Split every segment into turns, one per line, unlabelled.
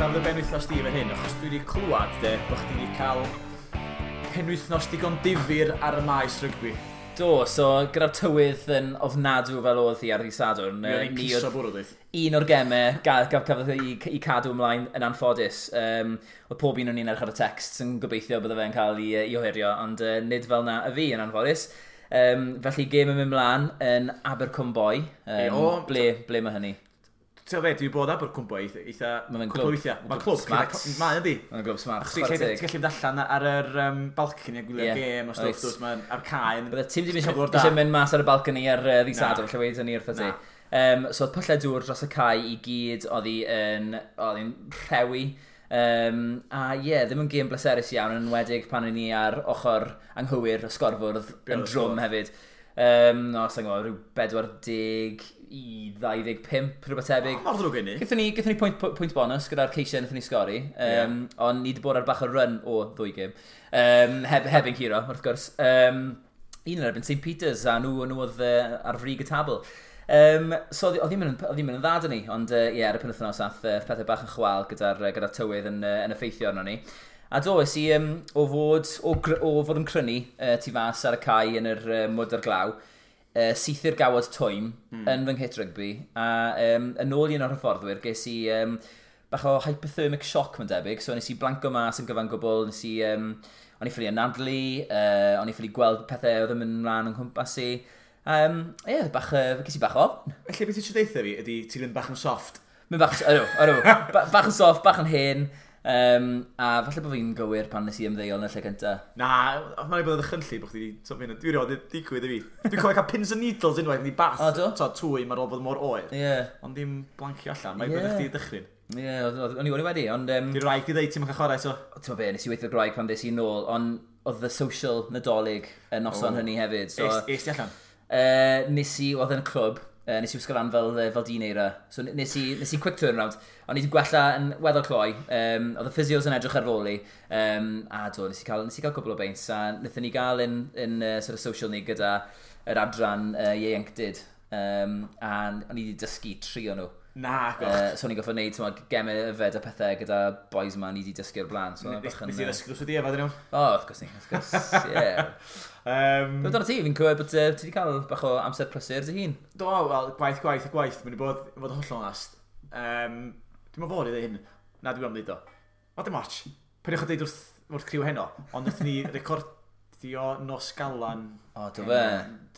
Dechrau fy benwythnos di efo hyn, achos dwi wedi clywed de, bod chdi wedi cael penwythnos digon difyr ar y maes rygbi.
Do, so gyda'r tywydd yn ofnadw fel oedd hi ar ddydd Sadwrn.
Mi oedd hi'n
ni
piso bwrw, dweud.
Un o'r gemau gafodd ei cadw ymlaen yn anffodus. Oedd pob un o'n i'n edrych ar y text yn gobeithio bydde fe'n cael ei ohirio, ond nid fel na y fi yn anffodus. Felly gêm yn mynd mlaen yn Abercwmboi.
O,
Ble mae hynny?
Ti'n gwybod be, dwi wedi bod Abercwmboi eitha
Ma' fe'n
cwpl o
glwb.
weithiau. Mae'n
Glwb
clwb
smart.
Mae yndi.
Mae'n glwb smart.
Achos ti'n
Chwarae
gallu
teg.
ti'n gallu mynd allan ar yr balcony a gwylio'r gêm o stwff, dwt, mae'n ar cae.
Bydde ti'n ddim
Cyflwr da.
eisiau mynd mas ar y balcony ar ddydd
Na.
Sadwrn, lle weud hynny wrtho ti.
Na.
So oedd pyllau dŵr dros y cae i gyd, oedd hi'n rhewi. A ie, yeah, ddim yn gêm bleserus iawn, yn enwedig pan o'n i ar ochr anghywir y sgorfwrdd
Be
yn
oedd y
drwm
sgôr?
hefyd. No, sa'n gwybod, rhyw 40 i 25, rhywbeth tebyg.
Mor ddrwg hynny.
Gaethon ni pwynt bonus gyda'r ceisiau wnaethon ni sgori, ond ni wedi bod ar bach o run o ddwy gêm. Heb ein curo, wrth gwrs. Un yn erbyn St Peters, a nhw oedd ar frig y tabl. So oedd ddim yn dda dyn ni, ond ie, ar y penwythnos ath pethau bach yn chwal gyda tywydd yn effeithio arno ni. A do, es i o fod yn crynu tu fas ar y cae yn yr mwd a'r glaw, syth i'r gawod twym yn fy nghit rygbi, a yn ôl i un o'r hyfforddwyr, ges i bach o hypothermic shock, mae'n debyg, so nes i blanco mas yn gyfan gwbl, o'n i ffili anadlu, o'n i ffili gweld pethau oedd yn mynd mlaen yng nghwmpas i. Ie, ges i bach o ofn.
Felly beth ti eisiau deutha fi ydy ti'n mynd bach yn soft.
Mynd bach, ydw, ydw, bach yn soft, bach yn hen, a falle bod fi'n gywir pan nes i ymddeol yn y lle cynta.
Na, mae'n bod yn ddychrynllyd bod chdi wedi... So, dwi rioed wedi digwydd i fi. Dwi'n cofio cael pins and needles unwaith yn ei bath.
O, do?
So, twym ar ôl bod mor oer.
Ie,
Ond dim blancio allan. Mae'n bod chdi dychryn.
ie, o'n i wedi, ond
Di'r wraig di ddeud ti'n cael chwarae, so.
Ti'n be, nes i weithio gwraig pan ddes i nôl, ond oedd y social Nadolig y noson hynny hefyd. So,
Es ti allan?
Nes i, oedd yn y clwb, nes i wisgo lan fel dyn eira. So nes i quick turnaround. O'n i wedi gwella yn weddol cloi. Oedd y physios yn edrych ar ôl i. A do, nes i gael cwbl o beints. A wnaethon ni gael yn sort of social ni gyda yr adran ieuenctid. A o'n i wedi dysgu tri o nhw.
Na, goch.
So o'n i'n gorfod gwneud, t'mod, gemau yfed a pethau gyda boys yma ni wedi dysgu o'r blaen. So, bach yn,
Nes i ddysgu wrth i efo, dyn nhw.
O, wrth gwrs ni, wrth gwrs, ie. Beth amdano ti? Fi'n clywed bod ti wedi cael bach o amser prysur dy hun.
Do, wel, gwaith, gwaith a gwaith. Mae'n i bod, i fod yn hollol onast. Dwi'n meddwl fod i ddweud hyn. Na, dwi'n am ddeud o. O, dim ots. Peidiwch â deud wrth criw heno. Ond wnaethon ni recordio nos Galan.
O, do fe?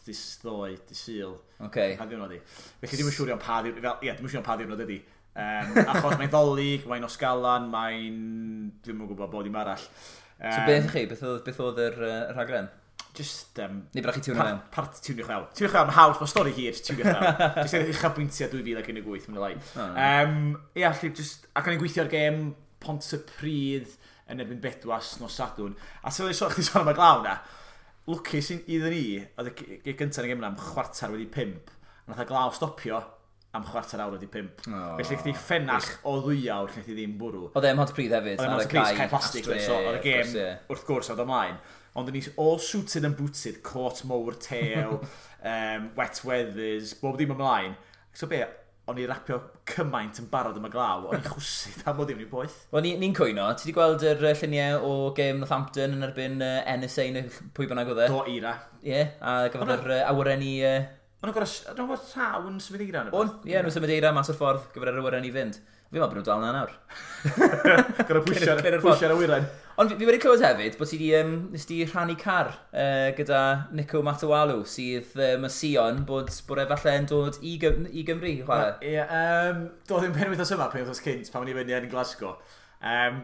Dydd ddoe, dydd Sul.
Oce.
Pa ddiwrnod i. Felly dwi'n siŵr iawn pa ddiwrnod, fel, ie, dwi'n siŵr iawn pa ddiwrnod ydi. Achos mae'n Ddolig, mae'n nos Galan, mae'n... Dwi'n yn gwybod bod dim arall.
So beth chi? Beth oedd yr rhaglen?
Just...
Neu byddech chi tiwnio mewn?
Part tiwnio fewn. Tiwnio fewn, haws, mae stori hir, tiwnio fewn. Just yn uchafbwyntiau 2018, mae'n lai.
O,
Ie, allu, just... Ac o'n i'n gweithio ar gêm Pontypridd yn erbyn Bedwas nos Sadwrn. A sydd wedi sôn, chdi sôn am y glaw na. Lwcus iddyn ni, oedd y gyntaf yn y gêm yna am 5:15. A nath y glaw stopio am 5:15.
O,
Felly chdi ffenach o 2 awr lle chdi ddim bwrw.
Oedd e ym Mhontypridd hefyd,
Oedd e'n
ar y
Pontypridd,
cae.
cae plastig,
Astra,
so oedd y
ie,
gêm,
wrth gwrs, ie.
wrth gwrs, oedd ymlaen. Ond o'n i all suited and booted, cot mowr tew, wet weathers, bob dim ymlaen. So be, o'n i rapio cymaint yn barod am y glaw, o'n i chwsu am bod ddim yn poeth.
Wel, ni'n cwyno. Ti wedi gweld yr lluniau o gêm Northampton yn erbyn NSA neu pwy bynnag oedd e?
Do eira.
Ie, a gafodd yr awyren i
O'n nhw'n gorfod rhaw yn symud eira?
On, ie, nhw'n symud eira mas o'r ffordd gyfer yr awyren i fynd. Fi'n meddwl bod nhw'n dal na nawr.
Gorfod
Clirio'r
pwysio'r awyren.
Ond fi wedi clywed hefyd bod ti di, nes di rhannu car gyda Nico Matawalu, sydd mae Sion bod e falle yn dod i Gymru i chwarae.
Ie, do ddim penwythnos yma, penwythnos cynt, pan o'n i fyny yn Glasgow.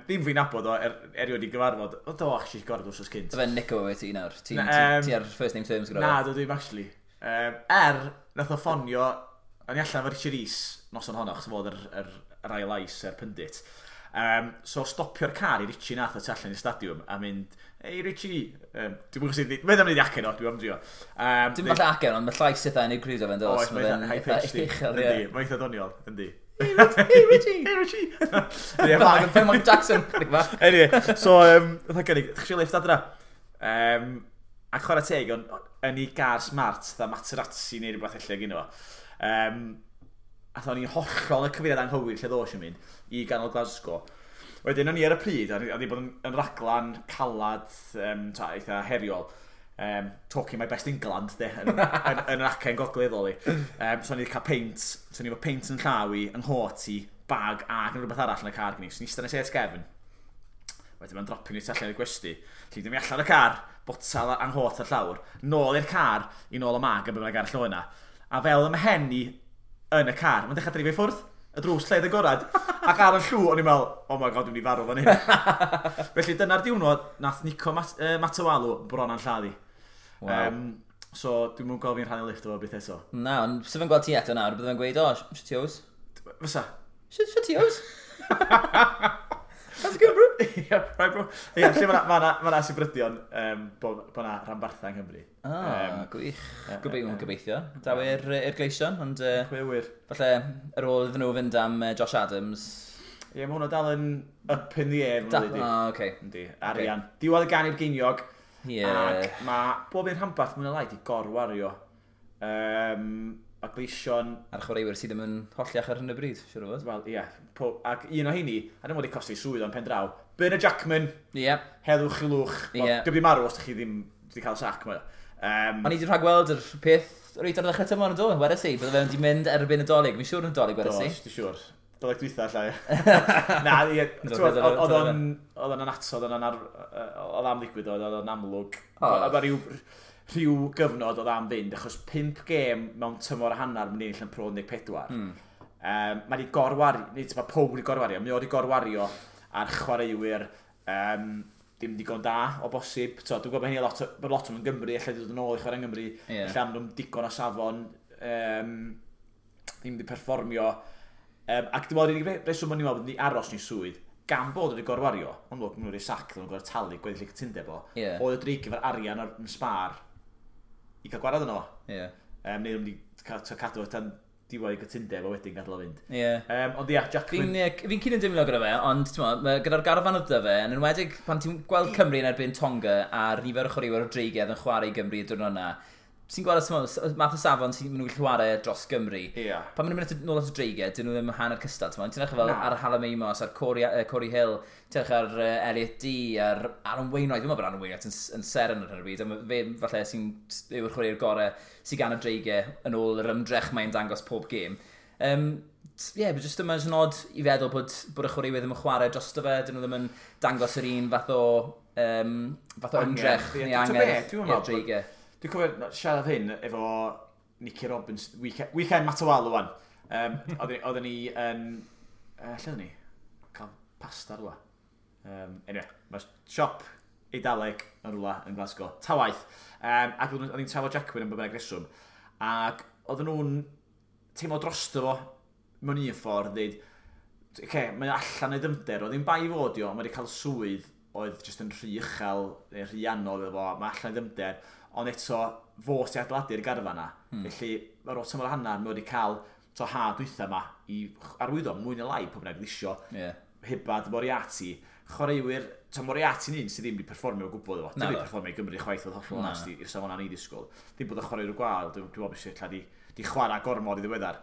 Ddim fi'n nabod o, erioed i gyfarfod. O, do, actually, gorfod wsos cynt.
Fe Nico wyt ti nawr. Ti'n
Na,
ti, ti ar first name terms gyda
Na,
fe.
do ddim actually. Nath o ffonio, o'n i allan efo Richard Rees noson honno, achos fod yr ail lais, yr pundit. So stopio'r car i Richie nath o tu allan i'r stadiwm a mynd, "Hey Richie," dwi'n gwybod sydd, mae'n am wneud acen o, dwi'n am drio.
Dim falle acen, ond mae llais eitha unigryw da fe'n dos.
Oes, mae'n eitha high pitched.
Uchel,
Yndi,
ie.
mae'n eitha doniol, yndi.
"Hey Richie!"
"Hey Richie!" Ie,
Fel Michael Jackson. Chydig bach.
Anyway, so, oedd gynnig, "Ddech chi lift adra?" A chwarae teg, ond yn ei gar smart, dda Materazzi neu rhywbeth ella gyno fo. Um, A o'n i'n hollol y cyfeiriad anghywir lle ddos i'n mynd i ganol Glasgow. Wedyn o'n i ar y pryd, a wedi bod yn raglan calad, eitha heriol. Talking my best England, de, yn yr acen gogleddol i. So o'n i wedi cael peint, so o'n i efo peint yn llaw i, yng nghot i, bag ac yn rhywbeth arall yn y car gen i. So o'n i eistedd yn y sêt gefn. Wedyn mae'n dropio ni tu allan i'r gwesty. Lle dwi'n allan y car, botal anghot ar llawr, nôl i'r car, i nôl y mag a bydd arall o yna. A fel y mhen i yn y car, mae'n dechrau dreifio i ffwrdd. Y drws lled agorad. Ac ar y llw, o'n i'n meddwl, oh my god, dwi'n mynd i farw fan hyn. Felly dyna'r diwrnod, nath Nico Matawalu bron a'n lladdu.
Wow.
So dwi'n mwyn gweld fi'n rhannu lift efo beth eto.
Na, ond sef yn gweld ti eto nawr, bydde fe'n gweud, oh, shit yo's.
Fysa?
Shit yo's. How's it going, bro?
Yeah, right, bro. Ie, lle mae 'na sibrydion bod 'na rhanbarthau yng Nghymru.
Ah, gwych. Gobeithio. Daw i'r Gleision, ond
Pwy a ŵyr?
Falle ar ôl iddyn nhw fynd am Josh Adams.
Ie, mae hwnna dal yn up in the air.
Ah, oce.
Yndi, arian. Diwedd y gan i'r geiniog.
Ie.
Ac mae bob un rhanbarth mwyn y lai di gorwario. A Gleision.
A'r chwaraewyr sydd ddim yn holliach ar hyn o bryd, siwr o fod.
Wel, ie. Ac un o heini, a ddim wedi costi swydd o'n pen draw, Bernard Jackman,
Ie.
Heddwch i lwch.
Ie.
Wel, di marw os ydych chi ddim wedi cael sac. Mae.
O'n i wedi rhagweld yr peth reit ar ddechrau tymor yn do, wedes i, bydde fe'n di mynd erbyn y Dolig. Fi'n siŵr yn Dolig, wedes i.
Do, dwi'n siŵr. Dolig dwytha, llai. Na, ie, oedd o'n anatod, oedd am ddigwydd, oedd o'n amlwg. Oedd rhyw gyfnod oedd am fynd, achos 5 gêm mewn tymor a hanner mynd i ennill yn Pro 14. Mae wedi gorwario, nid mae pob wedi gorwario, mae wedi gorwario ar chwaraewyr dim digon da o bosib. So, dwi'n gwybod bod hynny lot, bod lot o'n Gymru, allai dod yn ôl i chwarae yng Nghymru, lle am nhw'n digon o safon, ddim wedi perfformio. Ac dwi'n meddwl, yr unig reswm o'n i'n meddwl bod ni aros ni swydd, gan bod wedi gorwario, ond maen nhw wedi sac, nhw'n gorfod talu gweddill y cytundeb o, oedd y dreig efo'r arian ar yn sbar i cael gwarad yno. Neu nhw'n wedi cadw tan diwedd y cytundeb a wedyn gadael o fynd. Ond ia, Jackman.
Fi'n cyn yn dimlo gyda fe, ond gyda'r garfan oedd 'da fe, yn enwedig pan ti'n gweld Cymru yn erbyn Tonga a'r nifer o chwaraewyr o dreigiau yn chwarae i Gymru y diwrnod yna, ti'n gweld y math o safon sy'n nhw'n gallu chwarae dros Gymru. Pan maen nhw'n mynd nôl at y dreigiau, dyn nhw ddim hanner cystal. Ti'n edrych fel ar Hallam Amos, ar Corey Hill, ti'n edrych ar Elliot Dee, ar Aaron Wainwright. Dwi'n meddwl bod Aaron Wainwright yn seren ar hyn o bryd. A fe falle sy'n yw'r chwaraewr gorau sy'n gan y dreigiau yn ôl yr ymdrech mae'n dangos pob gêm. Ie, but just yma yn odd i feddwl bod y chwaraewyr ddim yn chwarae drosto fe, dyn nhw ddim yn dangos yr un fath o ymdrech neu angerdd i'r dreigiau.
Dwi'n cofio siarad hyn efo Nicky Robbins, weekend Matawalu wan. Oedden ni yn... lle oedden ni? Cael pasta rhywle. Anyway, mae siop Eidaleg yn rhywle yn Glasgow. Ta waith. Ac oedden ni'n trafod Jackman yn bynnag reswm. Ac oedden nhw'n teimlo drosto fo mewn un ffordd, dweud, okay, mae allan ei dymder, oedd ddim bai fod i o, mae wedi cael swydd oedd jyst yn rhy uchel, neu rhy anodd iddo fo, mae allan ei dymder, ond eto fo sy'n adeiladu'r garfan na. Felly, ar ôl tymor hanner, mae wedi cael to ha dwytha yma i arwyddo mwy neu lai pob bynnag isio. Hibbard, Moriarty, chwaraewyr, to Moriarty'n un sydd ddim wedi perfformio o gwbl efo. Ddim wedi perfformio i Gymru chwaith oedd hollol onest i'r safon ni ddisgwyl. Ddim bod y chwaraewyr gwael, dwi'n meddwl beth lle di chwarae gormod i ddiweddar.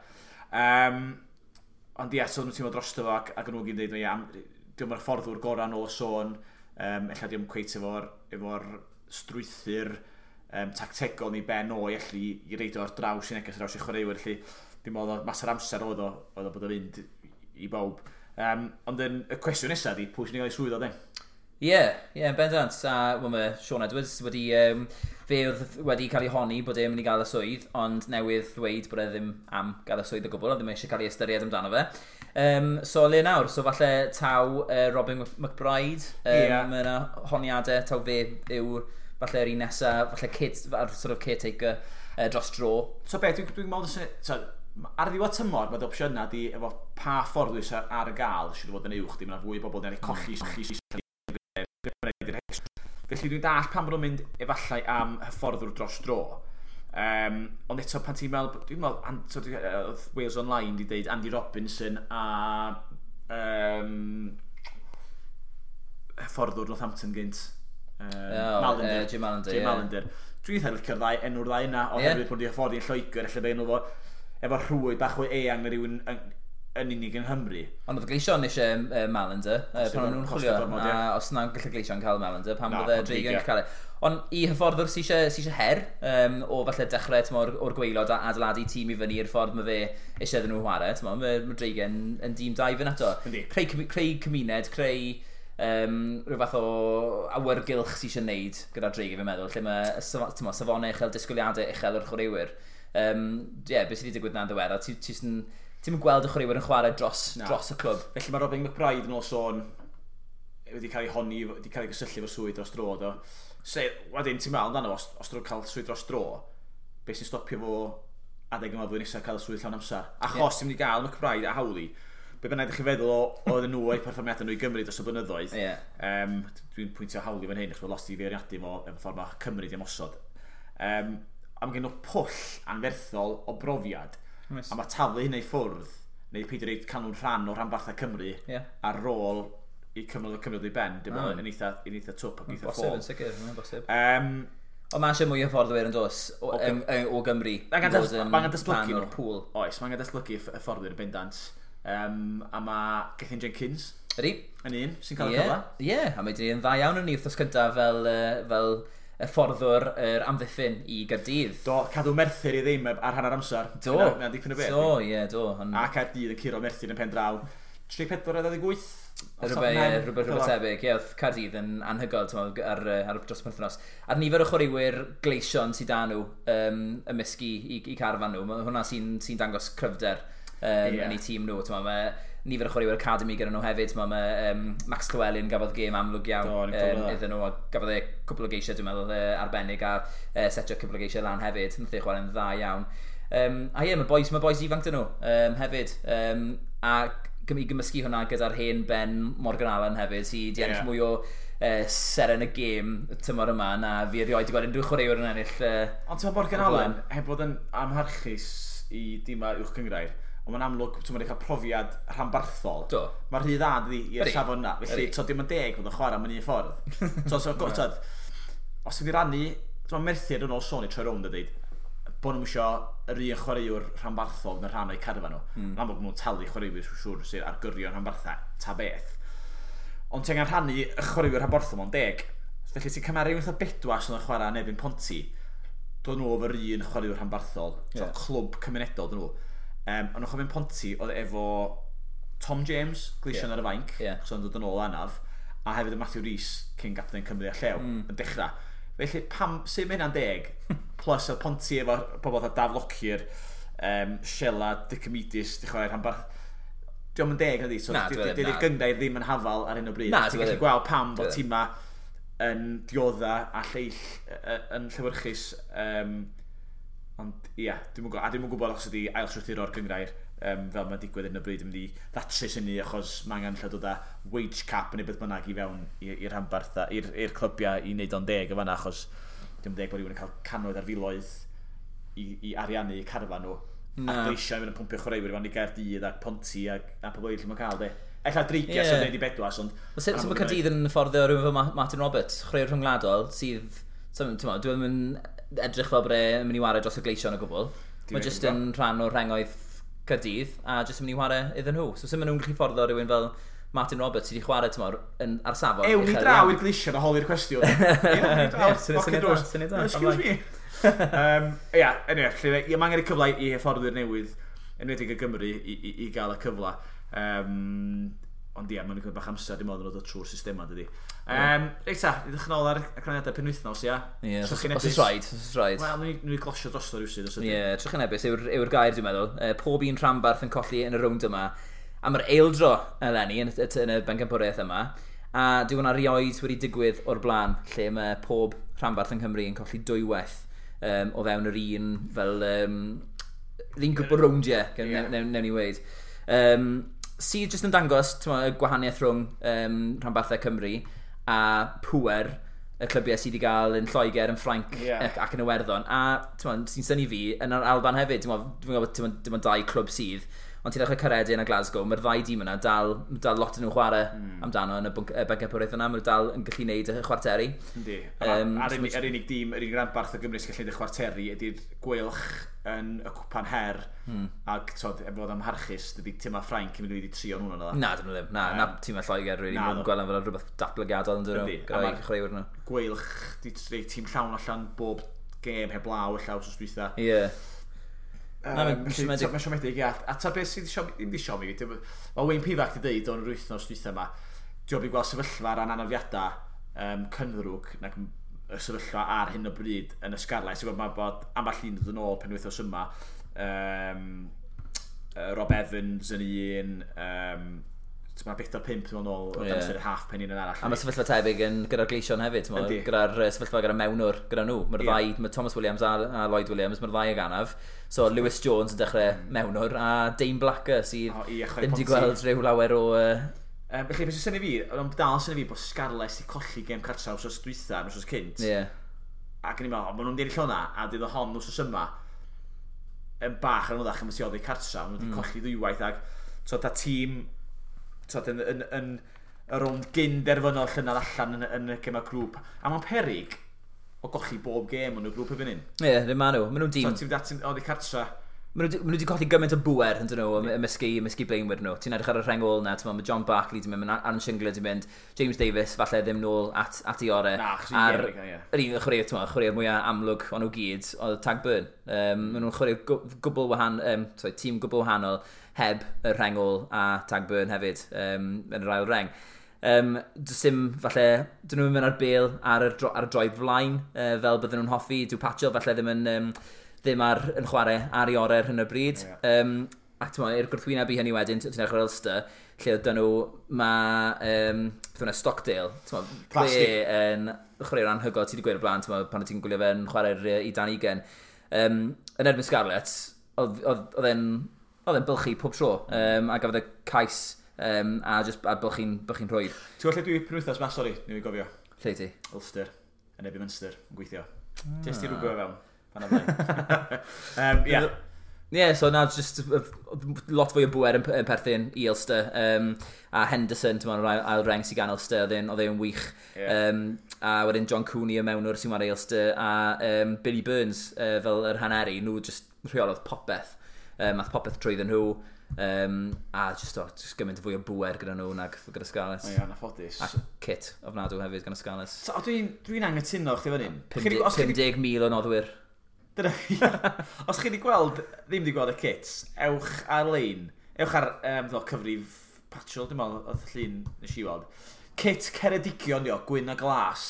Ond ie, so nhw'n teimlo drosto fo ac nhw gyd yn dweud, diolch yn fforddwr gorau nôl y sôn, ella diolch cweit efo'r strwythur tactegol ni ben o i allu i reidio ar draws i neges, draws i chwaraewyr, felly dim ond mas o'r amser oedd o bod o'n fynd i bawb. Ond y cwestiwn nesaf di, pwy sy'n ei gael ei swydd o de?
Ie, yn bendant. A well, mae Sean Edwards wedi, fe oedd wedi cael ei honni bod e'n mynd i gael y swydd, ond newydd ddweud bod e ddim am gael y swydd o gwbl, a ddim eisiau cael ei ystyried amdano fe. So le nawr, so falle taw Robin McBride, mae yna honiadau, taw fe yw falle'r un nesaf, falle kid, sort of caretaker dros dro.
So be, dwi'n meddwl, so, ar ddiwedd tymor, mae opsiynau di efo pa ffordd wyt ar y gael, sydd fod yn uwch, dim yna fwy o bobl yn colli. Felly dwi'n dall pam bod nhw'n mynd efallai am hyfforddwr dros dro. Ond eto pan ti'n meddwl, dwi'n meddwl, oedd Wales Online wedi dweud Andy Robinson a hyfforddwr Northampton gynt. Mallinder.
Jim Mallinder.
Jim Mallinder. Dwi'n eitha licio'r ddau, enw'r ddau yna, oherwydd bod wedi hyfforddi yn Lloegr, ella be enw fo, efo rhwyd bach o eang na rhywun yn unig yng Nghymru.
Ond oedd Gleision eisiau Mallinder, pan o'n nhw'n chwilio, a os na'n gallu Gleision cael Mallinder, pam bydde Dreigiau'n cael e. Ond i hyfforddwr sy'n eisiau her, o falle dechrau o'r gwaelod a adeiladu tîm i fyny i'r ffordd mae fe eisiau iddyn nhw chwarae, mae Dreigiau'n yn dîm da i fynd ato. Creu cymuned, creu rhyw fath o awyrgylch sy'n eisiau neud gyda'r Dreigiau, fi'n meddwl, lle mae safonau uchel, disgwyliadau uchel o'r chwaraewyr. Beth sydd wedi digwydd na'n ddiweddar, ti'n mynd gweld y chwaraewyr yn chwarae dros y clwb.
Felly mae Robin McBride yn ôl sôn wedi cael ei honni, wedi cael ei gysylltu efo'r swydd dros dro. Do. Se, wedyn ti'n meddwl amdano, os drwy'n cael swydd dros dro, beth sy'n stopio fo adeg yma flwyddyn nesaf cael y swydd llawn amser? Achos ti'n mynd i gael McBride a Howley, be bynnag ydych chi'n feddwl oedden nhw o'i perfformiadau nhw i Gymru dros y blynyddoedd. Dwi'n pwyntio Howley fan hyn, achos mae lot i feirniadu fo efo ffordd mae Cymru di ymosod. A mae gen nhw pwll anferthol o brofiad. Nice. A mae taflu hynna i ffwrdd, neu peidio reid cael nhw'n rhan o rhanbarthau Cymru ar ôl i cyfnod o Cymru ddod i ben, dim ond yn eitha twp ac eitha ffôl.
Yn sicr, mae'n bosib. Ond mae eisiau mwy o hyfforddwyr yn dos o Gymru.
Mae angen datblygu nhw. Oes, mae angen datblygu hyfforddwyr yn bendant. A mae Gethin Jenkins.
Ydy.
Yn un sy'n cael y cyfle.
Ie, a mae wedi yn dda iawn yn ni wythnos cyntaf fel hyfforddwr yr amddiffyn i Gaerdydd.
Do, cadw Merthyr i ddim ar hanner amser.
Do.
Mae'n dipyn o beth.
Do, ie, do.
A Caerdydd yn curo Merthyr yn pen draw. 34 a 28.
Rhywbeth tebyg. Ie, oedd Caerdydd yn anhygoel ar dros y penwythnos. A'r nifer o chwaraewyr gleision sydd â nhw ymysg i carfan nhw, hwnna sy'n dangos cryfder yn eu tîm nhw. Mae nifer o chwaraewyr academy gyda nhw hefyd. Mae Max Llewellyn gafodd gêm amlwg iawn iddyn nhw, a gafodd e cwpl o geisiau, dwi'n meddwl, arbennig, a setio cwpl o geisiau lan hefyd. Nath e chwarae'n dda iawn. A ie, mae boys ifanc dyn nhw hefyd. A i gymysgu hwnna gyda'r hen Ben Morgan Allen hefyd, sydd wedi ennill mwy o seren y gêm tymor yma na fi erioed wedi gweld unrhyw chwaraewr yn ennill.
Ond ti'n Morgan Allen, heb fod yn amharchus i dîmau uwch gynghrair, ond mae'n amlwg, ti'n mynd i cael profiad rhanbarthol.
Do.
Mae'r rhy dda i'r safon na. Felly, dim yn deg bod yn chwarae mewn un ffordd. Os ti'n rannu, ti'n Merthyr yn ôl sôn i troi rownd a dweud, bod nhw'n eisiau yr un chwaraewr rhanbarthol yn rhan o'i carfan nhw. Yn amlwg nhw'n talu chwaraewyr siŵr sydd ar gyrion rhanbarthau, ta beth. Ond ti'n angen rhannu y chwaraewyr rhanbarthol mewn deg. Felly ti'n cymharu wrth o Bedwas yn chwarae yn erbyn Ponty, dod nhw efo'r un chwaraewr rhanbarthol, clwb cymunedol dyn nhw. Ond o'ch yn Ponty oedd efo Tom James, Gleision ar y fainc, so yn dod yn ôl anaf, a hefyd y Matthew Rees, cyn gapten Cymru a Llew, yn dechrau. Felly, pam, sut mae hynna'n deg? Plus, oedd Ponty efo pobl fatha Daf Lockyer, Sheila, Dicomidis, di chwarae rhanbarth. Dio'm yn deg, nadi? So, dydy'r gynghrair ddim yn hafal ar hyn o bryd. Ti'n gallu gweld pam bod tîma yn diodda a lleill yn llewyrchus. Ond ia, dwi'm yn gwybod os ydi ail-strwythuro'r gynghrair fel mae'n digwydd yn y bryd yn mynd i ddatrys hynny, achos mae angen lle dod â wage cap neu beth bynnag i fewn i'r rhanbarth, i'r clybiau i wneud o'n deg o fanna, achos dim deg bod rhywun yn cael cannoedd ar filoedd i ariannu carfan nhw. A Gleision yn mynd yn pwmpio chwaraewyr i fewn i Gaerdydd ac Ponty a pobl eraill lle mae'n cael de. Ella Dreigiau sy'n gwneud i Bedwas, ond...
Sut mae Caerdydd yn fforddio rhywun fel Martin Roberts, chwaraewr rhyngwladol, sydd... Dwi'n mynd edrych fel bod e'n mynd i wario dros y Gleision o gwbl. Mae jyst yn rhan o'r rhengoedd Caerdydd a jyst yn mynd i wario iddyn nhw. So sut maen nhw'n gallu fforddio rhywun fel Martin Roberts sydd wedi chwarae tymor ar safon.
Ewn ni draw i'r Gleision a holi'r cwestiwn. Syniad da. Excuse me. Ia, anyway, mae angen y cyfle i hyfforddwyr newydd, enwedig y Gymru, i gael y cyfle. Ond ia, mae'n cymryd bach amser, dim ond yn dod trwy'r systema, dydy. Reit ta, i ddechrau nôl ar y canlyniadau penwythnos, ia?
Ie, os oes rhaid, os oes rhaid.
Wel, nhw'n glosio drosto rhywsyd, os
ydy. Ie, trychinebus yw'r gair, dwi'n meddwl. Pob un rhanbarth yn colli yn y rownd yma. Am yr eildro eleni yn y bencampwriaeth yma. A dyw hwnna rioed wedi digwydd o'r blaen, lle mae pob rhanbarth yng Nghymru yn colli dwywaith o fewn yr un, fel, yr un grwp o rowndiau, newn ni weud. Sydd jyst yn dangos y gwahaniaeth rhwng rhanbarthau Cymru a pŵer y clybiau sydd wedi cael yn Lloegr, yn Ffrainc ac yn Iwerddon. A sy'n synnu fi, yn yr Alban hefyd, dwi'n gwybod dim ond dau clwb sydd, Ond ti'n dechrau Caeredin a Glasgow, mae'r ddau dîm yna dal lot yn nhw'n chwarae amdano yn y bencampwriaeth yna. Maen nhw dal yn gallu gwneud y chwarteri.
Yndi. A'r unig dîm, yr unig ranbarth o Gymru sy'n gallu gwneud y chwarteri ydy'r Gweilch yn y Cwpan Her. Ac tod, efo fod amharchus, dydy tîmau Ffrainc yn mynd i trio nhw'n yna.
Na, dyn nhw ddim. Na, na tîmau Lloegr, really. Maen nhw'n gweld am fel rhywbeth datblygiadol yn dyn nhw. Gyda'i chwaraewyr nhw.
Gweilch, di tîm llawn allan bob gêm heblaw y llaw wsos dwytha.
Ie.
Mae'n siomedig, ia. A ta beth sydd ddim di siomi, mae Wayne Pivac di dweud o'n yr wythnos dwytha yma, diolch i gweld sefyllfa ran anafiadau cynddrwg nag y sefyllfa ar hyn o bryd yn y Scarlets. Ti'n gwybod, mae bod ambell un dod yn ôl penwythnos yma. Rob Evans yn un, mae 4-5 yn ôl o dan ystyr half pen un yn arall.
A mae sefyllfa tebyg yn gyda'r Gleision hefyd, gyda'r sefyllfa gyda'r mewnwr gyda nhw. Mae'r ddau, mae Thomas Williams a Lloyd Williams, mae'r ddau ag anaf. So Lewis Jones yn dechrau mewnwr a Dane Blacker sydd ddim wedi gweld rhyw lawer o...
Felly, beth sy'n synnu fi, ond dal sy'n fi bod Scarlets wedi colli gêm cartra wsos dwytha, wsos cynt. Ac yn i'n meddwl, maen nhw'n ennill hwnna, a dydd o hon wsos yma, yn bach yn anoddach am y oddi cartra, maen nhw wedi colli ddwywaith, ac so, ta tîm yn, yn, yn y rownd gyn derfynol llynedd allan yn y gemau grŵp. A mae'n perig o golli bob gêm yn y grŵp erbyn hyn.
Ie, ddim maen nhw. Maen nhw'n dîm.
So, ti'n mynd oddi cartra.
Maen nhw wedi colli gymaint o bŵer yn dyn nhw, ymysgu blaenwyr nhw. Ti'n edrych ar y rheng ôl na, ti'n meddwl, mae John Barkley di mynd, mae Aaron Shingler di mynd, James Davis falle ddim nôl at ei orau.
Na, achos i'n gêm, ie.
Yr un chwaraewr, ti'n meddwl, chwaraewr mwyaf amlwg o'n nhw gyd, oedd Tag Burn. Maen nhw'n chwarae gwbl wahanol, tîm gwbl wahanol heb y rheng ôl a Tag Burn hefyd yn yr ail reng. Does dim, falle, dyn nhw'n mynd ar bêl ar y droed flaen, fel bydden nhw'n hoffi. Dyw Patchell falle ddim yn... ddim ar yn chwarae ar ei orau ar hyn o bryd. Ac ti'n meddwl, i'r gwrthwyneb i hynny wedyn, ti'n edrych ar Ulster, lle oedd nhw, mae beth hwnna, Stockdale, ti'n meddwl, fe yn chwarae'r anhygoel, ti wedi gweud o'r blaen, ti'n meddwl, pan ti'n gwylio fe'n chwarae'r i Dan Ugen. Yn erbyn Scarlets, oedd e'n bylchu pob tro, a gafodd e cais, a just a bylchu'n rhwydd.
Ti'n gwybod lle dwi penwythnos ma, sori, ni'n gofio?
Lle ti?
Ulster, yn erbyn Munster, yn gweithio. Jyst i rwbio fewn.
Yeah, so na, just lot fwy o bŵer yn perthyn i Ulster. A Henderson, ti'n meddwl, ail reng sy'n gan Ulster, oedd e'n wych. A wedyn John Cooney y mewnwr sy'n chwarae Ulster, a Billy Burns fel yr haneri, nhw just rheolodd popeth. Ath popeth trwyddyn nhw. A just gymaint fwy o bŵer gyda nhw nag gyda Scarlets.
O ia, anffodus.
A kit ofnadw hefyd gan y Scarlets.
So, dwi'n anghytuno chdi fan hyn.
50,000 o noddwyr.
Dyna, os chi wedi gweld, ddim wedi gweld y kits, ewch ar-lein, ewch ar cyfrif Patchell, dim ond oedd llun nes i weld. Kit Ceredigion, dio, gwyn a glas.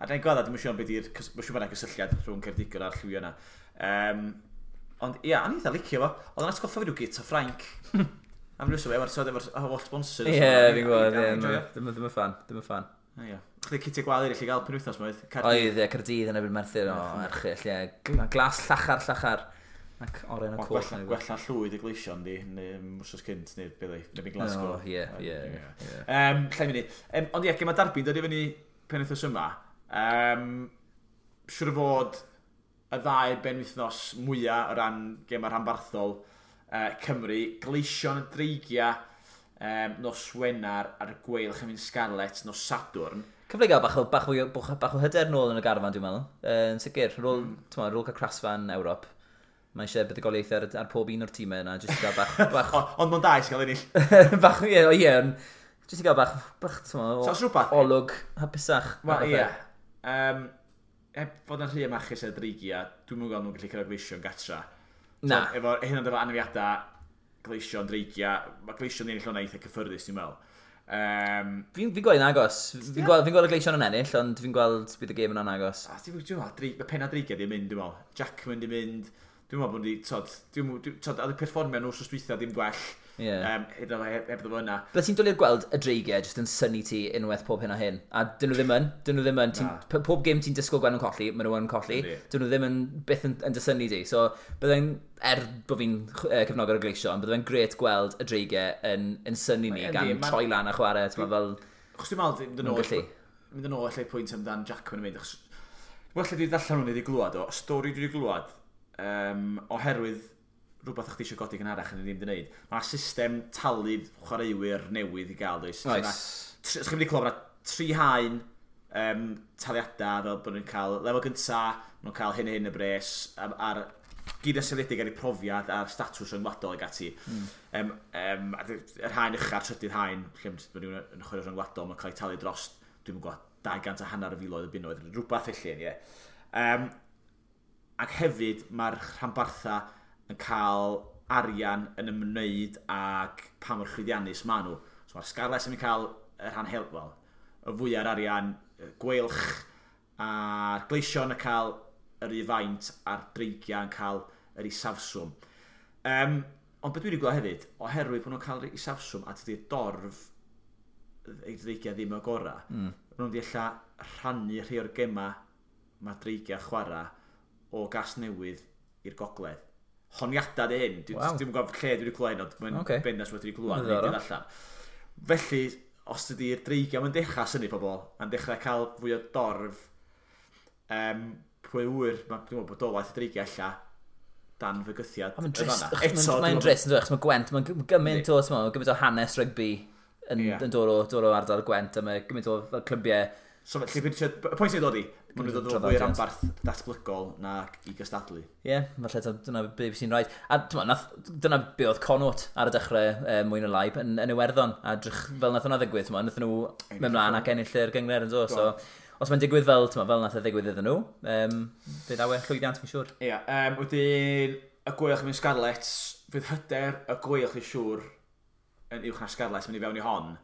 A dwi'n gweld, dwi'n siŵr beth yw'r, mae'n siŵr bod yna gysylltiad rhwng Ceredigion a'r lliwio yna. Ond ia, o'n i eitha licio fo. Oedd yn atgoffa fi rhyw git o Ffrainc. Am rhywbeth, efo'r holl sponsors.
Ie, fi'n gwybod, ddim yn fan, ddim yn fan.
Ie. Chdi citiau gwael eraill i gael penwythnos ma oedd?
Oedd, ie, Caerdydd yn erbyn Merthyr, o, erchyll, ie. Glas llachar, ac oren y coch.
Gwella llwyd y Gleision, di, neu wsos cynt, neu beth neu beth Glasgow.
O, ie, ie.
Llai munud. Ond ie, gema Derby'n dod i fyny penwythnos yma. Siŵr o fod y ddau benwythnos mwyaf o ran gema rhanbarthol Cymru, Gleision y Dreigiau, nos Wener a'r Gweilch yn mynd Scarlets nos Sadwrn.
Cyfle i gael bach o hyder nôl yn y garfan, dwi'n meddwl. Yn sicr, ar ôl cael crasfa'n Ewrop, mae eisiau buddugoliaethau ar pob un o'r tîmau yna, jyst i gael bach...
Ond mae'n da i gael ennill.
Bach, ie, jyst i gael bach, ti'n meddwl, olwg hapusach.
Wel, ie. Heb fod yn rhy amachus ar Dreigiau, dwi'n meddwl nhw'n gallu cyrraedd Gleision gatra.
Na.
Efo hyn ond efo anafiadau Gleision, Dreigiau, mae Gleision ennill hwnna eitha cyffyrddus, dwi'n meddwl.
Fi'n gweld yn agos. Fi'n gweld y Gleision yn ennill, ond fi'n gweld bydd y gêm yn agos.
Dwi'n meddwl, mae penna Dreigiau di mynd, dwi'n meddwl. Jackman di mynd, dwi'n meddwl bod nhw wedi, oedd y perfformio nhw wsos dwytha ddim gwell. Heb fo yna.
Bydde ti'n dwlu gweld y Dreigiau jyst yn synnu ti unwaith pob hyn a hyn. A dyn nhw ddim yn. Dyn nhw ddim yn. Pob gêm ti'n disgwyl gweld nhw'n colli, maen nhw yn colli. Dyn nhw ddim yn byth yn dysynnu ti. So, byddai'n, er bod fi'n cefnogwr y Gleision, byddai'n grêt gweld y Dreigiau yn synnu ni gan troi lan a chwarae. Ti'n fel...
Achos dwi'n meddwl, mynd yn ôl allai pwynt amdan Jackman yn mynd. Achos, well, dwi darllen hwn i wedi glwad o. Stori dwi wedi glwad, oherwydd Rhywbeth o'ch chi eisiau godi gynharach yn ddim wedi gwneud. Mae system talu chwaraewyr newydd i gael, does?
Oes.
Os chi'n mynd i clywed, mae 3 haen taliadau, fel bod nhw'n cael lefel gynta, maen nhw'n cael hyn a hyn y bres, ar gyd yn seiliedig ar eu profiad a'r statws rhyngwladol ag ati. Yr haen ucha'r trydydd haen, lle mae rhywun yn chwarae rhyngwladol, mae'n cael ei talu dros, dwi'n gwybod, 200 a hanner o filoedd o bunnoedd, rhywbeth felly, ie. Ac hefyd mae'r rhanbarthau yn cael arian yn ymwneud ag pa mor llwyddiannus maen nhw. So mae'r Scarlets yn cael y rhan hel, wel, y fwyaf arian, y Gweilch a'r Gleision yn cael yr un faint a'r Dreigiau yn cael yr isafswm. Ond beth dwi wedi gweld hefyd, oherwydd bod nhw'n cael yr isafswm a dydy'r dorf y Dreigiau ddim y gorau, maen nhw'n wedi ella rhannu rhai o'r gema mae Dreigiau chwarae o Gasnewydd i'r gogledd. Honiadau di hyn. Dwi'n gwybod lle dwi wedi clywed, ond mae'n bendant wedi clywed.
Diddorol.
Allan. Felly, os dydy'r Dreigiau mae'n dechrau synnu pobl, a'n dechrau cael fwy o dorf, pwy ŵyr, dwi'n meddwl bodolaeth y Dreigiau ella dan fygythiad.
Mae'n
yn
drist,
fan'na. Eto,
mae'n
dwi'n
drist, yn dweud, achos mae Gwent, mae'n gymaint o, t'mo, gymaint o hanes rygbi yn, yn dod o ardal Gwent, a mae gymaint o fel clybiau.
So, felly, y pwynt sy'n dod i, maen nhw'n dod o fwy
Traddodiad.
ranbarth datblygol na i gystadlu.
Ie, yeah, falle dyna be sy'n rhaid. A t'mo, dyna be oedd Connacht ar y dechrau mwy na lai yn Iwerddon. A drych fel nath hwnna ddigwydd, t'mo, nath nhw mynd mlaen ac ennill yr gynghrair yn do. So, os mae'n digwydd fel, t'mo, fel nath e ddigwydd iddyn nhw, fe ddaw e llwyddiant, fi'n siŵr.
Ie, wedyn y Gweilch yn Scarlets, fydd hyder y Gweilch i siŵr yn uwch na Scarlets mynd i fewn i hon.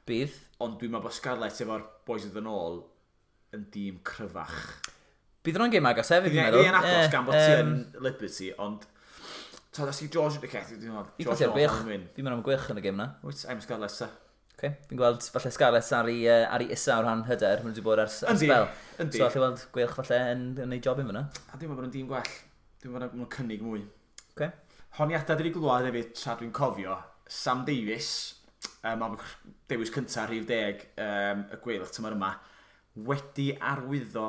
Bydd.
Ond dwi'n meddwl bod Scarlets efo'r boys yn dod yn ôl yn dîm cryfach.
Bydd hwnna'n gêm agos hefyd, fi'n
Dwi'n
meddwl.
yn agos gan bod ti
yym,
yn Liberty, ond ta, os i George, okay, dwi'n meddwl,
Fi'n
George
ffasio'r
North
Gweilch.
yn win.
Fi'n meddwl am Gweilch yn y gêm na.
Wyt, I'm Scarlets, ta.
Okay. Fi'n gweld falle Scarlets ar ei isa o ran hyder, maen nhw wedi bod ers
Yndi,
spel.
yndi.
So allai weld Gweilch falle yn ei job i fyna.
A dwi'n meddwl bod nhw'n dîm gwell. Dwi'n meddwl bod nhw'n cynnig mwy.
Okay.
Honiadau dwi wedi glwad hefyd, tra dwi'n cofio, Sam Davies, am dewis cyntaf rhif 10 y Gweilch tymor yma, wedi arwyddo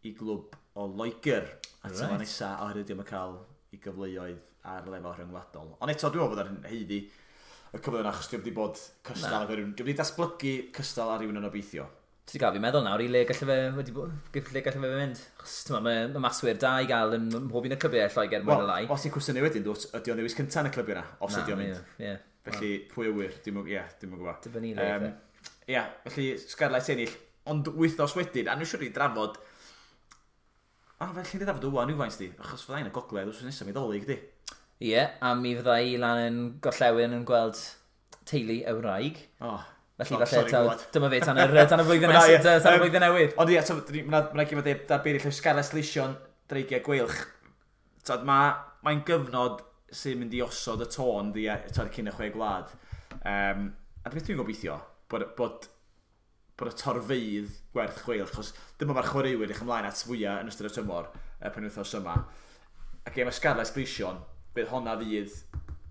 i glwb o Loegr a tymor nesaf oherwydd ddim yn cael ei gyfleoedd ar lefel rhyngwladol. Ond eto, dwi'n meddwl bod ar haeddu y cyfle yna, achos dwi'n wedi bod cystal ag rhywun. Dwi'n wedi datblygu cystal ar rhywun yn obeithio.
Ti wedi cael fi meddwl nawr i le galle fe, wedi le galle fe fynd. Achos, t'mo, mae maswyr da i gael yn mhob un o'r clybiau Lloegr mwy
Wel,
na lai.
os ti'n cwestiynu wedyn, dwt, ydy o'n ddewis cyntaf yn y clybiau yna, os ydy o'n mynd.
Ie, ie.
Felly, pwy a wyr, dim yn gwybod.
Dibynnu le.
Ie, felly Scarlets ennill, ond wythnos wedyn, a nhw siwr i drafod, a felly ni drafod wwan rhywfaint di, achos fyddai'n y gogledd wrth nesaf mi Ddolig di.
Ie, a mi fydda i lan yn gorllewin yn gweld teulu y wraig.
Oh,
Felly
oh,
falle
sorry,
taw,
glwad.
dyma fe tan y flwyddyn
Na, ie,
nesaf, tan y flwyddyn newydd.
Ond ie, so, ma' 'na gyfnod darbeiri lle Scarlets Gleision, Dreigiau Gweilch. Tod, mae'n gyfnod sy'n mynd i osod y tôn di, tod, cyn y chwe gwlad. A beth dwi'n gobeithio, bod y torfeydd gwerth chweil, achos dyma mae'r chwaraewyr eich ymlaen at fwyaf yn ystod y tymor, y penwythnos yma. A gêm y Scarlets Gleision, bydd honna fydd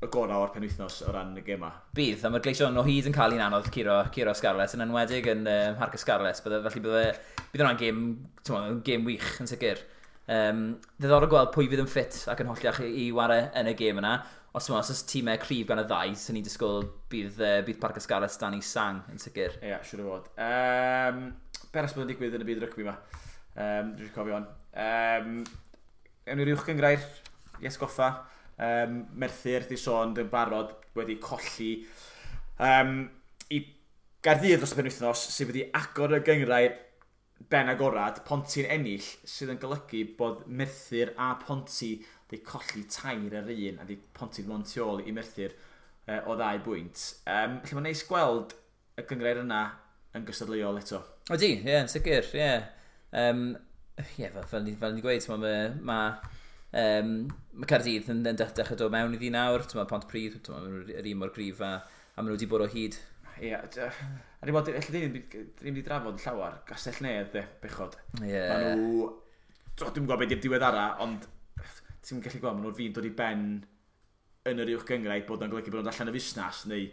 y gorau o'r penwythnos o ran y gema.
Bydd, a mae'r Gleision o hyd yn cael un anodd curo Scarlets, yn enwedig yn Mharc y Scarlets. Felly bydd hwnna'n gêm, t'mo, gêm wych yn sicr. Ddiddorol gweld pwy fydd yn ffit ac yn holliach i ware yn y gêm yna. Os, t'mo, os oes tîmau cryf gan y ddau, sy'n ni'n disgwyl bydd Parc y Scarlets dan ei sang yn sicr.
Ie, yeah, siŵr o fod. Be arall bod yn digwydd yn y byd rygbi yma? Dwi'n cofio hon. Ewn ni'r uwch gynghrair, i atgoffa. Merthyr, di sôn, yn barod wedi colli i Gaerdydd dros y penwythnos, sydd wedi agor y gynghrair ben agorad, Ponty'n ennill, sydd yn golygu bod Merthyr a Ponty wedi colli 3 ar 1, a di Ponty mond tu ôl i Merthyr o 2 bwynt. Felly mae'n neis gweld y gynghrair yna yn gystadleuol eto.
Ydy, ie, yn sicr, ie. Ie, fel ni gweud, mae Caerdydd yn dechrau dod mewn iddi nawr, mae Pontypridd, ma' nhw'n yr un mor gryf a maen nhw wedi bod o hyd.
Ie, a ni'n bod, ella dyn ni'n wedi drafod yn llawer, Gastell Nedd, de, bechod.
Ie.
Maen nhw, dwi'm yn gwybod beth yw'r diweddara, ond ti'n gallu gweld, maen nhw'n fi'n dod i ben yn yr uwch gynghrair, bod nhw'n golygu bod nhw'n allan y fusnes, neu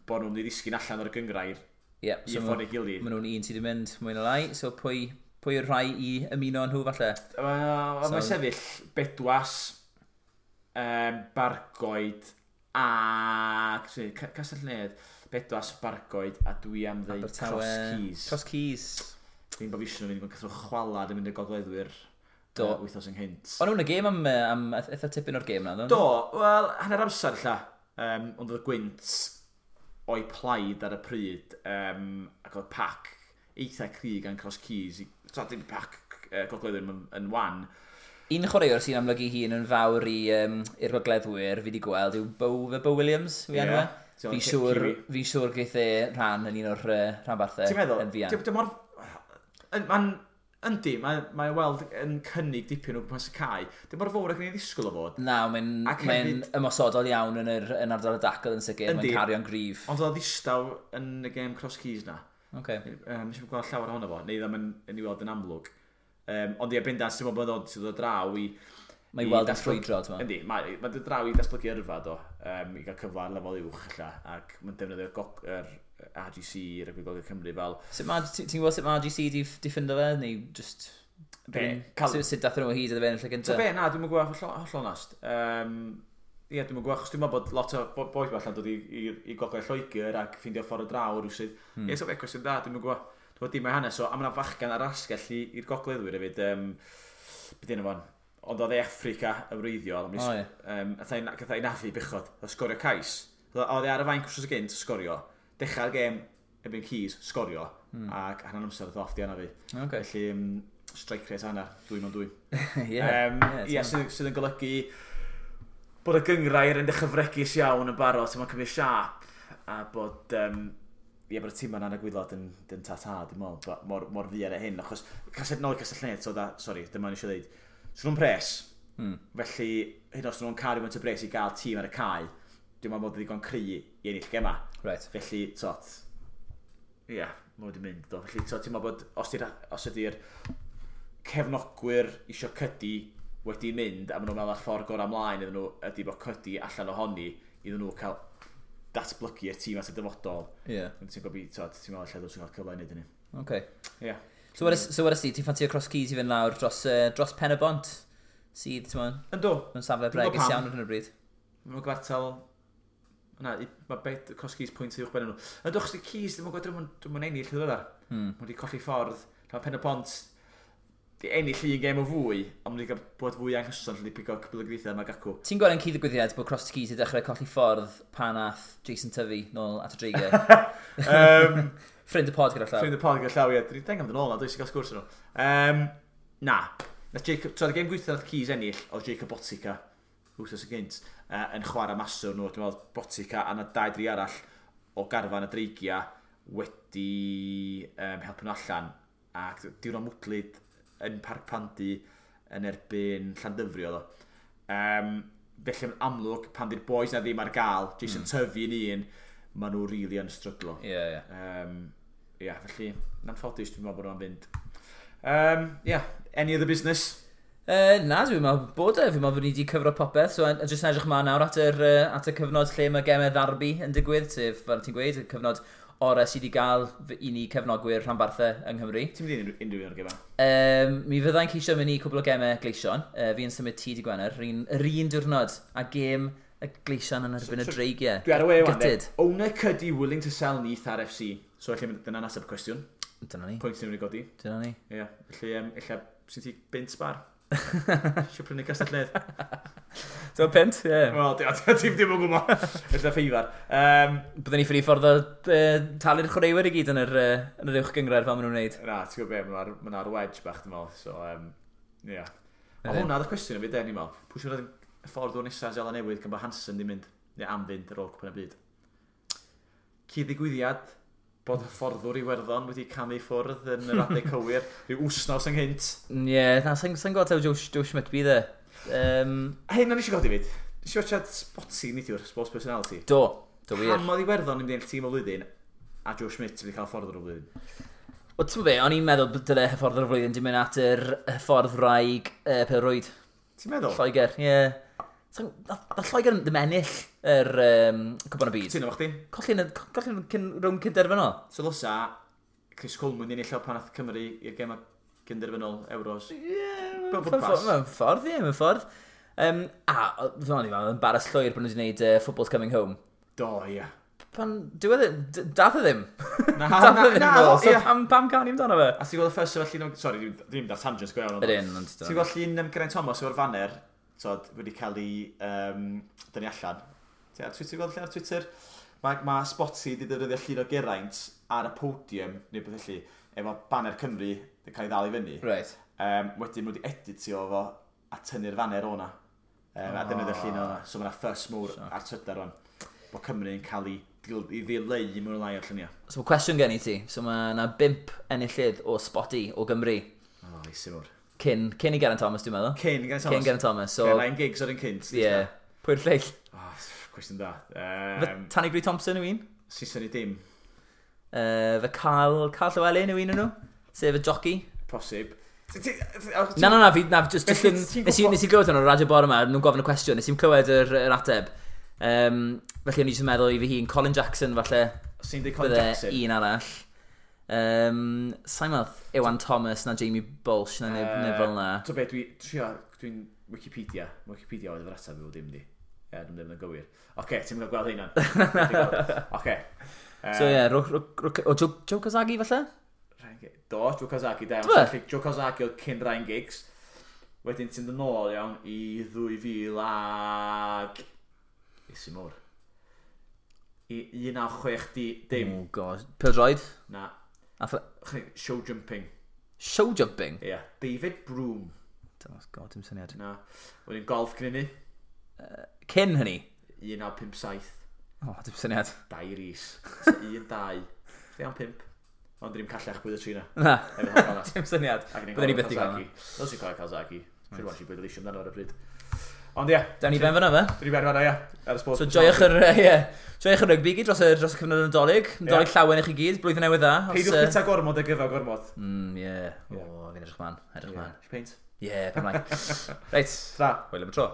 bod nhw'n mynd i ddisgyn allan o'r gynghrair
Ie,
i so ffordd ei gilydd.
Maen nhw'n un sydd wedi mynd mwy na lai, so pwy yw'r rhai i ymuno â nhw falle?
Mae'n sefyll Bedwas, Bargoed a Castell Nedd, Bedwas, Bargoed a dwi am ddeud Cross Keys.
Cross Keys.
Dwi'n bod fi eisiau nhw'n mynd i chwalad yn mynd i'r gogleddwyr. Do. Wythnos ynghynt.
O'n nhw'n y gêm am eitha tipyn o'r gêm na,
do? Wel, hanner amser lla. Ond oedd y gwynt o'i plaid ar y pryd, ac oedd pac eitha cry gan Cross Keys. So, dim pac gogleddwyr yn wan.
Un chwaraewr sy'n amlygu hun yn fawr i'r gogleddwyr fi wedi gweld yw Bo Williams, fi enw e. Fi'n siŵr geith e rhan yn un o'r rhanbarthau.
Ti'n meddwl? Yn fuan. Dim mor... Mae'n... Yndi, mae weld yn cynnig dipyn o gwmpas y cae. Dim mor fawr ag ni'n ddisgwyl o fod.
Na, mae'n mae ymosodol iawn yn ardal y dacl yn sicr. Mae'n cario'n gryf.
Ond oedd ddistaw yn y gêm Cross Keys na.
Okay.
Nes i'n gweld llawer ohono fo, neu ddim yn ei weld yn amlwg. Ond ie, bendant, ti'n meddwl bod o'n dod draw i...
Mae i weld yn ffrwydro, ti'n
meddwl? Yndi, mae'n dod draw i datblygu yrfa, do, i gael cyfle ar lefel uwch, ella, ac mae'n defnyddio'r RGC, Rygbi Gogledd Cymru, fel...
Ti'n gwybod sut mae RGC di ffindo fe, neu just... Sut dath nhw o hyd iddo fe yn y lle gyntaf?
Be, na, dwi'n gwybod holl onast. Ie, dwi'n gwybod, achos dwi'n meddwl bod lot o bois allan dod i Gogledd Lloegr ac ffeindio ffordd o draw rhywsut. Ie, so fe, cwestiwn da, dwi'n gwybod. Dwi'n meddwl dim o'i hanes o, a mae 'na fachgan ar asgell i'r gogleddwyr hefyd, beth yna fo'n, ond oedd e Affrica yn wreiddiol, gath ei nafu bechod, oedd sgorio cais. Oedd e ar y fainc wrth gynt, sgorio. Dechrau'r gêm erbyn Keys, sgorio, ac hanner amser oedd off di anafu.
Okay.
Felly, strike rate hanner, 2 mewn 2.
Yeah,
sydd yn golygu bod y gynghrair yn dechrau fregus iawn yn barod, mae'n cymryd siâp, a bod, bod y tîm yna'n y gwaelod yn ta-ta, dwi'n meddwl, mor fuan â hyn, achos nôl i Castell Nedd, so da, sorry, dyma ni eisiau dweud, so nhw'n pres, felly hyd os nhw'n cael rhywun y pres i gael tîm ar y cae, dwi'n meddwl bod ddigon cry i ennill gema.
Right.
Felly, tot, ie, yeah, mae wedi mynd, do. Felly, tot, ti'n meddwl bod os ydy'r cefnogwyr isio Cydi wedi mynd, a maen nhw'n meddwl ar ffordd gorau ymlaen iddyn nhw, ydy bod Cydi allan ohoni, iddyn nhw cael datblygu y tîm at y dyfodol.
Ie.
Yeah. Ti'n gwybod, tot, ti'n meddwl lle dwi'n cael cyfle i wneud hynny.
Okay.
Ie. Yeah.
So, what ti, ti'n ffansio Cross Keys i fynd lawr dros Pen y Bont, sydd, ti'n meddwl?
Yndw.
Mae'n safle bregus iawn ar hyn o bryd.
Mae'n gwartel... Na, mae Cross Keys pwynt uwch ben nhw. Yndw, achos di Keys, ddim yn gwybod, dwi'n mynd ennill yn ddiweddar. Mae wedi colli ffordd. Mae Pen y Bont di ennill un gêm o fwy, ond wedi cael bod fwy anghyson lle di pigo cwbl o gweithiau yma gacw.
Ti'n gweld yn cyd-ddigwyddiad bod Cross Keys i dechrau colli ffordd pan ath Jason Tyfu nôl at y Dreigiau? Ffrind y pod gyda llaw.
Ffrind y pod gyda llaw, ie. Dwi'n deng am dyn ôl na, dwi'n gael sgwrs nhw. Na. Nath Jacob, so, y gêm gweithio nath Keys ennill, oedd Jacob Botica, wrthos y gynt, yn chwarae maswr nhw. Dwi'n meddwl Botica a na 2-3 arall o garfan y Dreigiau wedi helpu nhw allan. Ac diwrnod mwdlyd yn Parc Pandy yn erbyn Llandyfri oedd o. Felly yn amlwg, pan di'r boys na ddim ar gael, Jason Tyfu yn un, maen nhw really yn stryglo.
Ie, ie.
Ie, felly, na'n ffodus dwi'n meddwl bod nhw'n fynd. Yeah, any other business?
Na, dwi'n meddwl bod e. Fi'n meddwl bod ni wedi cyfro popeth. So, jyst yn edrych ymlaen nawr at y cyfnod lle mae gemau ddarbi yn digwydd, sef, fel ti'n gweud, y cyfnod orau sydd wedi gael i ni cefnogwyr rhanbarthau yng Nghymru.
Ti'n mynd i unrhyw un o'r gemau?
Mi fyddai'n ceisio mynd i cwbl o gemau Gleision. Fi'n symud ti di Gwener, yr un diwrnod a gêm y Gleision yn erbyn y Dreigiau.
Dwi ar y we wan, Owner Cuddy willing to sell Neath RFC. So, felly, dyna'n ateb y cwestiwn.
Dyna ni.
Pwynt ni'n mynd i godi.
Dyna ni.
Ie, yeah, felly, ella, sy'n ti bint sbar? Isio prynu Castell Nedd.
Ti'n pint, ie.
Wel, ti'n ddim yn gwybod. Ella ffeifar.
Byddwn ni ffili ffordd o talu'r chwaraewyr i gyd yn yr uwch gynghrair fel maen nhw'n wneud.
Na, ti'n gwybod be, maen nhw ar wedge bach, dwi'n meddwl. So, ie. Yeah. Ond hwnna oedd y cwestiwn i fi, de, ni'n meddwl. Pwy sy'n y ffordd o'r nesaf Seland Newydd gan bod Hansen di mynd, neu am fynd ar ôl Cwpan y Byd. Cyd-ddigwyddiad bod hyfforddwr Iwerddon wedi camu ffwrdd yn yr adeg cywir, rhyw wsnos ynghynt.
Ie, yeah, na, sa'n gweld taw Joe Schmidt bydd e.
A hyn o'n eisiau godi fyd. Nes i watchad Spotsy neithiwr, Sports Personality.
Do wir.
Pam oedd Iwerddon yn mynd i ennill tîm o flwyddyn, a Joe Schmidt wedi cael hyfforddwr o flwyddyn?
Wel, ti'n be, o'n i'n meddwl bod dyle hyfforddwr o flwyddyn di mynd at yr hyfforddwraig pêl-rwyd.
Ti'n meddwl?
Lloegr, ie. Yeah. Na Lloegr ddim ennill yr Cwpan y Byd.
Ti'n efo chdi?
Colli'n rownd cynderfynol.
So ddylsa Chris Coleman ennill o pan ath Cymru i'r gema cynderfynol Euros.
Ie, mewn ffordd, ie, mewn ffordd. A, fydd o'n embarrass llwyr bod nhw wedi gwneud Football's Coming Home.
Do, ie.
Pan, diwedd, dath e ddim.
Na,
dath e ddim
na,
nôl, so
ie.
pam canu amdano fe?
A ti'n gweld y ffys efo llun o... Sorry, dwi'n mynd ar tangent go iawn.
Ydyn, ond...
Ti'n gweld llun Geraint Thomas efo'r faner, tod, wedi cael ei dynnu allan. Ti ar Twitter, gweld llun ar Twitter? Mae Spotty wedi defnyddio llun o Geraint ar y podium, neu beth felly, efo banner Cymru wedi cael ei ddal i fyny.
Right.
Wedyn nhw wedi editio fo a tynnu'r faner o'na. A defnyddio llun o'na. So mae'na fuss mawr ar Twitter rwan. Bod Cymru yn cael ei ddileu mewn lai o'r lluniau.
So mae cwestiwn gen i ti. So mae yna 5 enillydd o Spotty o Gymru.
O, oh, eisi mawr.
Cyn i Geraint Thomas, dwi'n meddwl.
Cyn Geraint Thomas.
Cyn Geraint Thomas. So,
okay, Ryan Giggs o'r un cynt.
Ie. Yeah. Pwy'r lleill?
Oh, cwestiwn da.
Tanny Grey Thompson yw un?
Saeson i dim.
Fe Carl Llewellyn yw un o'n nhw? Sef y jockey?
Posib.
Na, fi, na, just nes i glywed hwn o'r radio bore yma, nhw'n gofyn y cwestiwn, nes i'n clywed yr ateb. Felly o'n i jyst yn meddwl i fi hun, Colin Jackson falle.
Sy'n dweud Colin Jackson?
Un arall. Sa'n meddwl Iwan Thomas na Jamie Bolsh na neb fel na.
So be, dwi'n Wikipedia. Wikipedia oedd yr ateb i fod dim di. Ie, dwi'n ddim yn gywir. Oce, ti'n mynd gweld hynna. Oce.
So ie, o Joe Kazagi falle?
Do, Joe Kazagi, da. Joe Kazagi oedd cyn Ryan Giggs. Wedyn ti'n dod nôl iawn i 2000 ag... Isi mawr. I 1960 dim.
Oh god. Pêl-droed?
Na. Show jumping.
Show jumping?
Ie. Yeah. David Broome.
Oh god, dim syniad.
Na. Wedyn golf cyn hynny.
Cyn hynny?
1957.
Oh, dim syniad.
Dau Rees. 1, 2, 3, 5. Ond ddim callach bwyd y tri na.
Na. Dim syniad. Byddwn ni byth i gael.
Dos i'n cael Kawasaki. Siwr was i bleidleisio amdano ar y pryd. Ond ie.
Dawn ni ben fan'na fe?
Dawn ni ben fan'na, ie. Ar y
So joiwch yr, ie. Joiwch yr rygbi gyd dros y cyfnod Nadolig. Nadolig llawen i chi gyd, blwyddyn newydd dda.
Peidiwch bwyta gormod a gyfa gormod.
Ie. O, fi'n edrych man. Edrych man.
Peint?
Ie, pen mlaen. Reit.
Tra.
Hwyl am y tro.